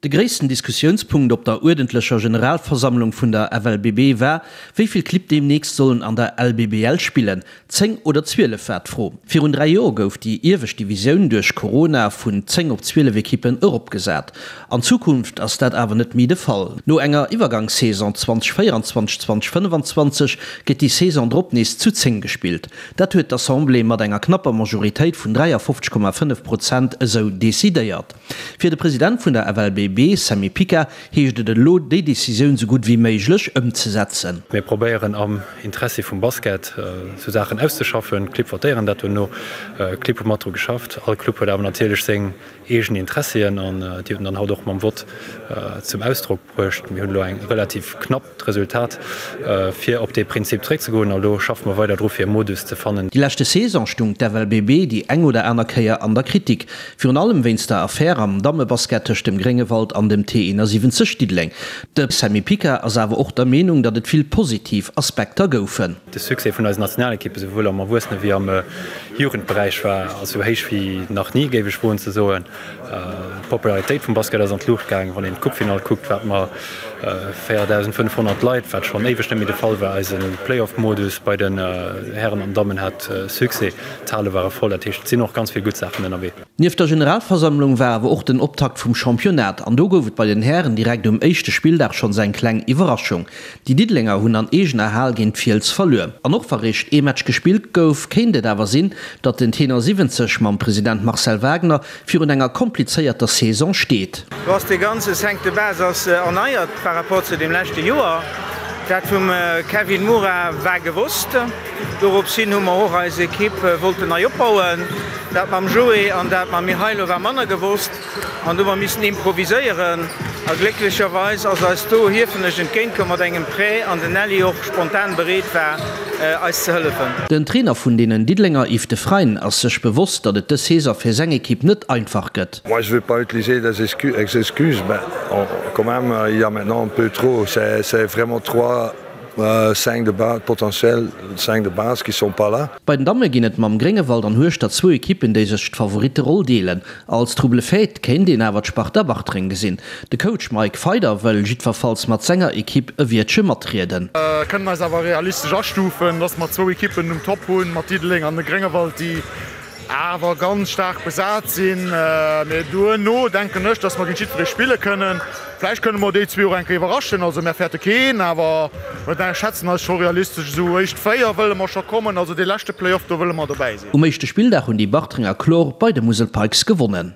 De gréissten Diskussiounspunkt op der uerdentlecher Generalversammlung vun der FLBB war, wéi vill Clibb deemnächst sollen an der LBBL spillen. 10 oder 12 war d'Fro. Virun 3 Joer gouf déi iewescht Divisioun duerch Corona vun 10 op 12 Ekippen eropgesat. An Zukunft ass dat awer net méi de Fall. No enger Iwwergangssaison 2024, 2025 gëtt déi Saison drop nees zu 10 gespillt. Dat huet d'Assemblée mat enger knapper Majoritéit vun 53,5 Prozent esou decidéiert. Fir de President vun der FLBB, Sammy Pica, heescht et elo, déi Decisioun sou gutt wéi méiglech ëmzesetzen. Mir probéieren am Interessi vum Basket sou Saachen auszeschaffen. D'Clibb votéieren dat duerno. D'Clibb hu mat dru geschafft. All Club huet awer natierlech seng eegen Interessien an déi huet en dann haut och mam Vott zum Ausdrock bruecht. Mir hunn elo eng relativ knappt Resultat fir op dee Prinzip zréckzegoen a elo schaffe mer weider dru fir e Modus ze fannen. Déi leschte Saison stung d'FLBB déi eng oder aner Kéier an der Kritik. Virun allem wéinst der Affär am Dammebasket tëscht dem Gréngewald an dem T71 Diddeleng. De Sammy Pica ass awer och der Meenung, datt et vill positiv Aspekter goufen. De Succès vun eisen Nationalekippe souwuel am Erwuessene wéi am Jugendberäich war esou héich wéi nach ni, géif ech woen ze soen. D'Popularitéit vum Basket ass an d'Luucht gaangen. Wann een d'Coupefinall kuckt, wat mer 4.500 Leit, wat schonn éiweg net méi de Fall war. Eise Playoff-Modus bei den Hären an Dammen hat Succès, d'Hale ware voll. Dat heescht, et sinn och ganz vill gutt Saachen ënnerwee. Nieft der Generalversammlung war awer och den Optakt vum Championnat an do gouf et bei den Hären direkt um éischte Spilldag schonns eng kleng Iwwerraschung. Déi Diddelenger hunn an eegener Hal géint d'Fiels verluer. An och wa réischt ee Match gespillt gouf, kéint et awer sinn, datt den Tenor 70 mam President Marcel Wagner virun enger komplizéierter Saison steet. Do ass dee ganze Cinq de base ass erneiert par rapport zu deem leschte Joer. Dat vum Kevin Moura war gewosst. Dorops hin hu mer och eis Ekipp wollten nei opbauen. Dat mam Joé an dat mam Mihailo war manner gewosst. An do hu mer missen improviséieren a glécklecherweis ass eis do Hiefenech entgéint komm mat engem Prêt an den Nelly och spontan bereet war eis ze hëllefen. Den Trainer vun deenen Diddelenger Yves Defreyne ass sech bewosst, datt et dës Saison fir seng Ekipp net einfach gëtt. Moi je vais pas utiliser des excuses mais quand même il y a maintenant un peu trop, c'est vraiment trois 5 de base potentiel 5 de base qui sont pas là. Bei den Damme ginn et mam Gréngewald an Hueschtert zwou Ekippen, déi sech d'Favoritteroll deelen. Als Trouble-fête kéint een awer d'Sparta Bartreng gesinn. De Coach Mike Feider wëll jiddwerfalls mat senger Ekipp e Wiertche matrieden. Kënnen eis awer realistesch astufen, dass mer zwou Ekippen um Top hunn, mat Diddeleng an de Gréngewald, déi awer ganz staark besat sinn. Mee duerno denken ech, dass mer géint jiddweree spille kënnen. Vläicht kënne mer déi zwee och eng Kéier iwwerraschen. Also mär fäerte keen, awer mer schätzen eis scho realistesch esou éischt 4 wëlle mer scho kommen. Also dee leschte Play-off, do wëlle mer dobäi sinn. Um éischte Spilldag hunn déi Bartrenger kloer bei de Musel Pikes gewonnen.